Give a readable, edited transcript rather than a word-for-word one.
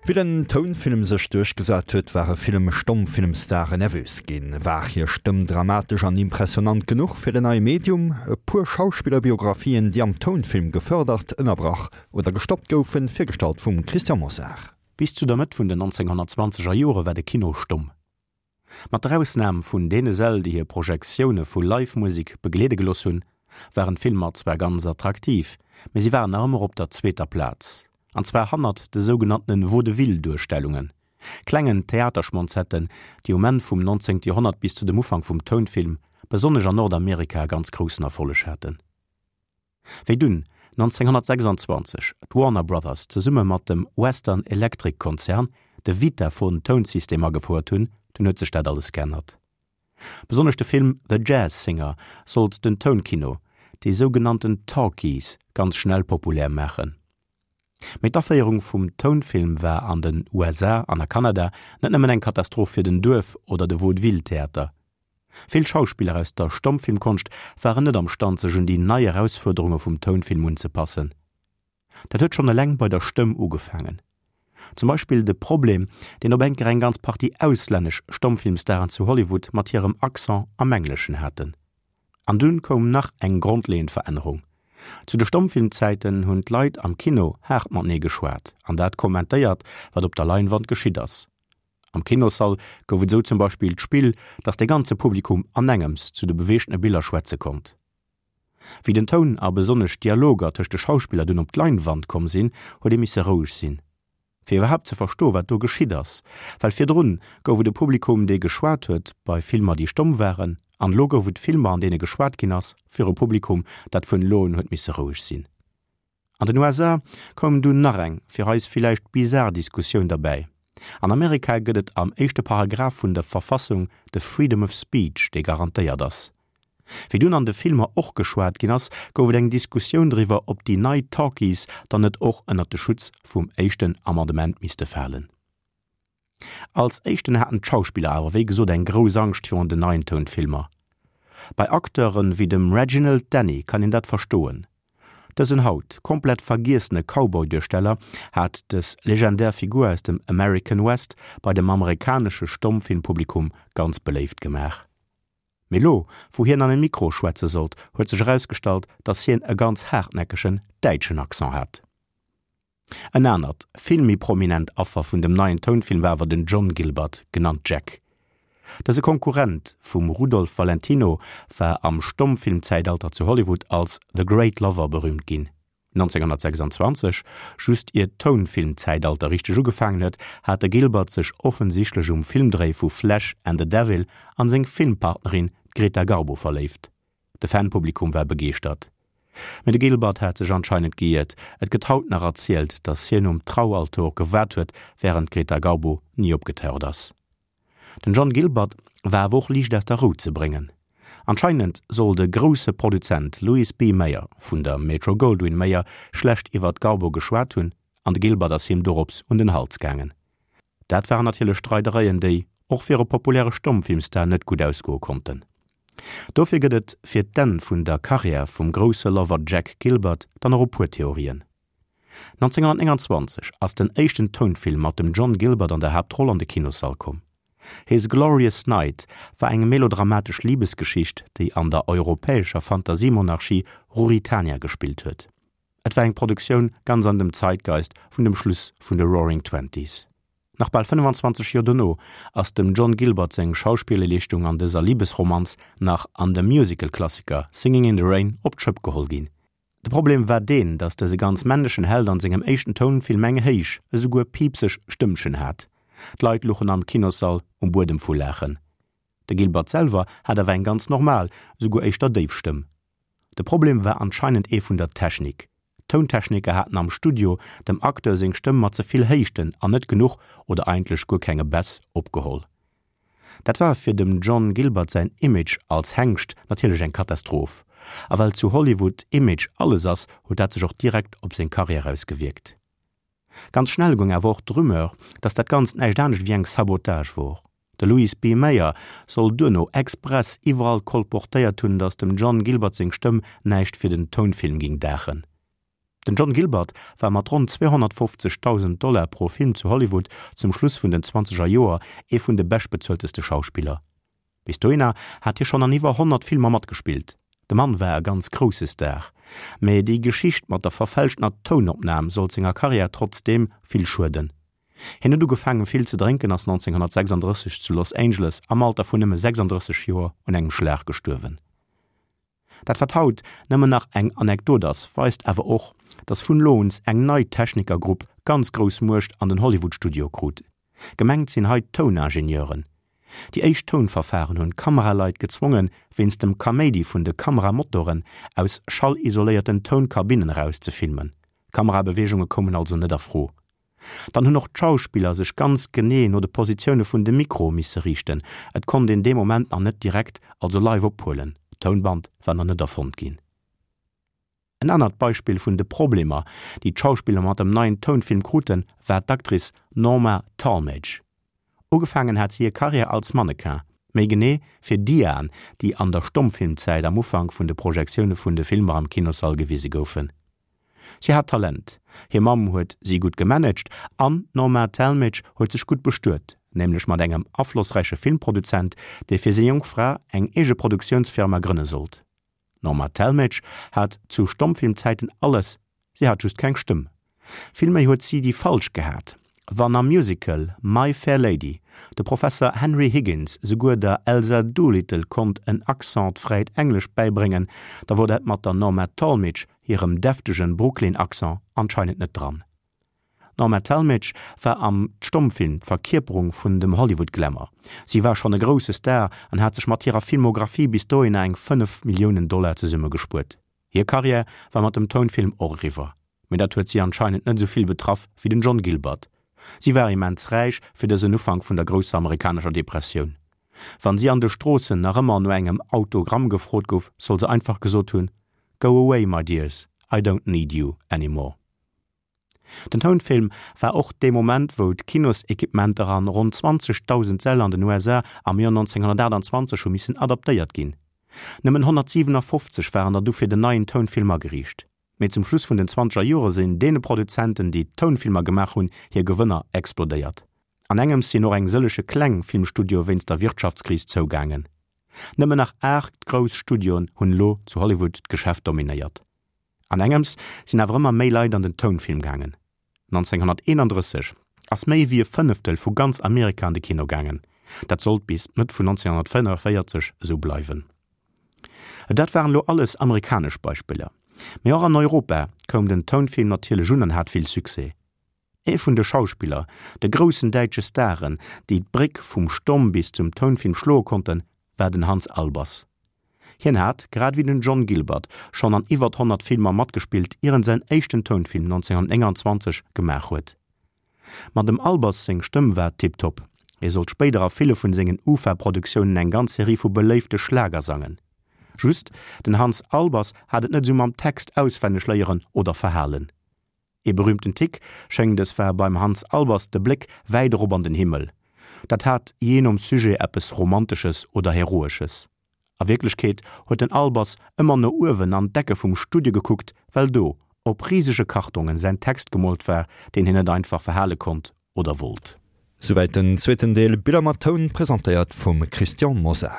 Wéi den Tounfilm sech duerchgesat huet, ware vill Stommfilmstaren nervös ginn. War hir Stëmm dramatesch an impressionant genuch fir den neie Medium? E puer Schauspillerbiografien, déi am Tounfilm gefërdert, ënnerbrach oder gestoppt goufen, virgestallt vum Christian Mosar. Bis zu der Mëtt vun den 1920 er Jore war de Kino stomm. Mat der Ausnam vun deene Säll, déi hir Projektioune vu Live-Musek begleede gelooss hunn, waren d'Filmer zwar ganz attraktiv, mee si waren nach ëmmer op der zweeter Plaz, an zwar hannert de sougenanntene Vaudeville-Duerstellungen, klengen Theaterschmonzetten, déi um Enn vum 19. Joerhonnert bis zu dem Ufank vum Tounfilm besonnesch an Nordamerika ganz groussen Erfolleg haten. Wéi dunn 1926 d'Warner Brothers zesumme mat dem Western Electric Konzern de Vitaphone Tounsystem agefouert hunn, dunn huet sech dat alles geännert. Besonnesch de Film The Jazz Singer sollt den Tounkino, déi sougenannten Talkies, ganz schnell populär maachen. Mee d'Aféierung vum Tounfilm war an den USA an a Kanada net nëmmen eng Katastroph fir den Duerf oder de Vaudeville-Theater. Vill Schauspiller aus der Stommfilmkonscht waren net am Stand sech un déi nei Erausfuerderunge vum Tounfilm unzepassen. Dat huet schonn eleng bei der Stëmm ugefaangen. Zum Beispill de Problem, deen op enker eng ganz Partie auslännesch Stommfilmstaren zu Hollywood mat hirem Accent am Engleschen haten. An dunn koum nach eng grondleeënd Verännerung. Zu de Stommfilmzäiten hunn d'Leit am Kino haart matenee geschwat an dat kommentéiert, wat op der Leinwand geschitt ass. Am Kinossall gouf et esou zum Beispill d'Spill, dass de ganze Publikum anengems zu de beweegtene Biller schwätze konnt. Wéi den Toun a besonnesch d'Dialoger tëscht de Schauspiller dunn op d'Leinwand komm sinn, huet ee misse roueg sinn, fir iwwerhaapt ze verstoen, wat do geschitt ass. Well virdrun gouf et e Publikum, dee geschwat huet bei Filmer, déi stomm waren, an elo gouf et Filmer, an deene geschwat ginn ass, fir e Publikum, dat vun elo un huet misse roueg sinn. An den USA koum dunn nach eng, fir eis villäicht bizar Diskussioun derbäi. An Amerika gëtt et am éischte Paragraph vun der Verfassung de Freedom of Speech, dee garantéiert ass. Wéi dunn an de Filmer och geschwat ginn ass, gouf et eng Diskussioun driwwer, ob déi nei Talkies dann net och ënnert de Schutz vum éischten Amendement misste falen. Als éischten haten d'Schauspiller awer wéi gesot eng grouss Angscht virun den neien Tounfilmer. Bei Acteure wéi dem Reginald Denny kann een dat verstoen. Dësen haut komplett vergiessene Cowboy-Duersteller hat dës legendär Figur aus dem American West bei dem amerikanesche Stommfilmpublikum ganz beléift gemaach. Mee lo, wou hien an e Mikro schwätze sollt, huet sech erausgestallt, dass hien e ganz haartnäckegen däitschen Accent hat. En anert, vill méi prominent Affer vun dem neien Tounfilm war awer den John Gilbert, genannt Jack. Dëse Konkurrent vum Rudolph Valentino war am Stommfilmzäitalter zu Hollywood als The Great Lover berüümt ginn. 1926, just ier d'Tounfilmzäitalter richteg ugefaangen huet, hat de Gilbert sech offensichtlech um Filmdréi vu Flesh and the Devil an seng Filmpartnerin, d'Greta Garbo, verléift. De Fanpublikum war begeeschtert. Mee de Gilbert hat sech anscheinend geiert, et gëtt haut nach erzielt, datt hien um Traualtor gewaart huet, wärend d'Greta Garbo ni opgetaucht ass. Den John Gilbert war awer och liicht aus der Rou ze bréngen. Anscheinend soll de grousse Produzent Louis B. Mayer vun der Metro-Goldwyn-Mayer schlecht iwwer d'Garbo geschwat hunn an de Gilbert ass him dorops un den Hals gaangen. Dat waren natierlech Streidereien, déi och fir e populäre Stommfilmstar net gutt ausgoe konnten. Dofir gëtt et fir d'Enn vun der Karriär vum grousse Lover Jack Gilbert dann och e puer Theorien. 1929 ass den éischten Tounfilm mat dem John Gilbert an der Haaptroll an de Kinossall komm. His Glorious Night war eng melodramatesch Libesgeschicht, déi an der europäescher Fantasiemonarchie Ruritania gespillt huet. Et war eng Produktioun ganz an dem Zeitgeist vun dem Schluss vun de Roaring Twenties. Nach bal 25 Joer dono ass dem John Gilbert seng Schauspillerleeschtung an dëser Libesromanz nach an dem Musical-Klassiker Singing in the Rain op d'Schëpp geholl ginn. De Problem war deen, datt dëse ganz männlechen Held an sengem éischten Tounfilm eng héich, esouguer piipseg Stëmmchen hat. D'Leit luchen am Kinossall um Buedem vu Laachen. De Gilbert selwer hat awer eng ganz normal, esouguer éischter déif Stëmm. De Problem war anscheinend ee vun der Technik. D'Tountechniker haten am Studio dem Acteur seng Stëmm mat ze vill Héichten an net genuch, oder eigentlech guer kenge Bäss, opgeholl. Dat war fir dem John Gilbert säin Image als Hengscht natierlech eng Katastroph. A well zu Hollywood Image alles ass, huet dat sech och direkt op seng Karriär ausgewierkt. Ganz schnell goung awer och d'Rumeur, dass dat Ganzt näischt anescht wéi eng Sabotage wor. De Louis B. Mayer soll duerno express iwwerall kolportéiert hunn, dass dem John Gilbert seng Stëmm näischt fir den Tounfilm ging daachen. Den John Gilbert war mat ronn 250.000 Dollar pro Film zu Hollywood zum Schluss vun den zwanzeger Joer ee vun de beschtbezuelteste Schauspiller. Bis dohinner hat hie schonn an iwwer 100 Filmer matgespillt. De Mann war e ganz grousse Star. Mee déi Geschicht mat der verfälschtener Tounopnam sollt senger Karriär trotzdeem vill schueden. Hien huet ugefaangen vill ze drénken, ass 1936 zu Los Angeles am Alter vun nëmme 36 Joer un engem Schlag gestuerwen. Dat wat haut nëmmen nach eng Anekdot ass, weist awer och, datt vun elo uns eng nei Technikergrupp ganz grouss Muecht an den Hollywood-Studioe krut. Gemengt sinn hei d'Touningenieuren. Déi éischt Tounverfahren hunn d'Kameraleit gezwongen, wéinst dem Kaméidi vun de Kameramotoren aus schallisoléierten Tounkabinnen eraus ze filmen. Kamerabeweegunge koumen also net a Fro. Dann hunn och d'Schauspiller sech ganz genee no de Positioune vun de Mikroe misse riichten, et konnt een dee Moment nach net direkt, also live ophuelen, d'Tounband war nach net erfonnt ginn. En anert Beispill vun de Problemer, déi d'Schauspiller mat dem neien Tounfilm kruten, war d'Actrice Norma Talmadge. Ugefaangen hat si hir Karriär als Mannequin, méi genee fir Diaen, déi an der Stommfilmzäit am Ufank vun de Projektioune vun de Filmer am Kinossall gewise goufen. Si hat Talent, hir Mamm huet si gutt gemanagt an d'Norma Talmadge huet sech gutt bestuet, nämlech mat engem aflossräiche Filmproduzent, dee fir seng jonk Fra eng eege Produktiounsfirma grënne sollt. D'Norma Talmadge hat zu Stommfilmzäiten alles, si hat just keng Stëmm. Villméi huet si déi falsch gehat. Wann am Musical My Fair Lady de Professer Henry Higgins souguer der Elsa Doolittle konnt en accentfräit Englesch bäibréngen, da wor dat mat der Norma Talmadge hirem deftegen Brooklyn-Accent anscheinend net dran. D'Norma Talmadge war am Stommfilm d'Verkierperung vun dem Hollywood-Glamour. Si war schonn e grousse Star an hat sech mat hirer Filmographie bis dohinner eng 5 Milliounen Dollar zesummegespuert. Hir Karriär war mat dem Tounfilm och eriwwer, mee dat huet si anscheinend net esou vill betraff wéi den John Gilbert. Si war immens räich fir dësen Ufank vun der grousser amerikanescher Depressioun. Wann si an de Stroossen nach ëmmer no engem Autogramm gefrot gouf, soll se einfach gesot hunn, Go away, my dears, I don't need you anymore. Den Tounfilm war och dee Moment, wou d'Kinosequipementer an ronn 20.000 Säll an den USA am Joer 1928 hu missen adaptéiert ginn. Nëmmen 157 waren der du fir den neien Tounfilm ageriicht. Mee zum Schluss vun den zwanzeger Jore sinn deene Produzenten, déi Tounfilmer gemaach hunn, hir Gewënner explodéiert. An engems sinn och eng sëllege kleng Filmstudioe wéinst der Wirtschaftskris zougaangen. Nëmmen nach 8 grouss Studioen hunn elo zu Hollywood d'Geschäft dominéiert. An engems sinn awer ëmmer méi Leit an den Tounfilm gaangen. 1931 ass méi wéi e Fënneftel vu ganz Amerika an de Kino gaangen. Dat sollt bis d'Mëtt vun 1945 esou bleiwen. Dat waren elo alles amerikanesch Beispiller. Mee och an Europa koum den Tounfilm natierlech un an hat vill Succès. Ee vun de Schauspiller, de groussen däitsche Staren, déi d'Bréck vum Stomm bis zum Tounfilm schloe konnten, war den Hans Albers. Hien hat, grad ewéi den John Gilbert, schonn an iwwert 100 Filmer matgespillt, ier en säin éischten Tounfilm 1929 gemaach huet. Ma dem Albers seng Stëmm war tiptop, hie sollt spéider a ville vun sengen UFA-Produktiounen eng ganz Serie vu beléifte Schlager sangen. Just, den Hans Albers hat et net esou mam Text auswenneg léieren oder verhalen. Ee berühmten Tick schéngt es war beim Hans Albers de Bléck wäit erop an den Himmel. Dat hat jee nom Sujet eppes Romantesches oder Heroesches. A Wierklechkeet huet den Albers ëmmer no uewen an d'Ecke vum Studio gekuckt, well do op risege Kartongen säin Text gemoolt war, deen hien net einfach verhale konnt oder wollt. Souwäit den zweeten Deel Biller mat Toun, presentéiert vum Christian Mosar.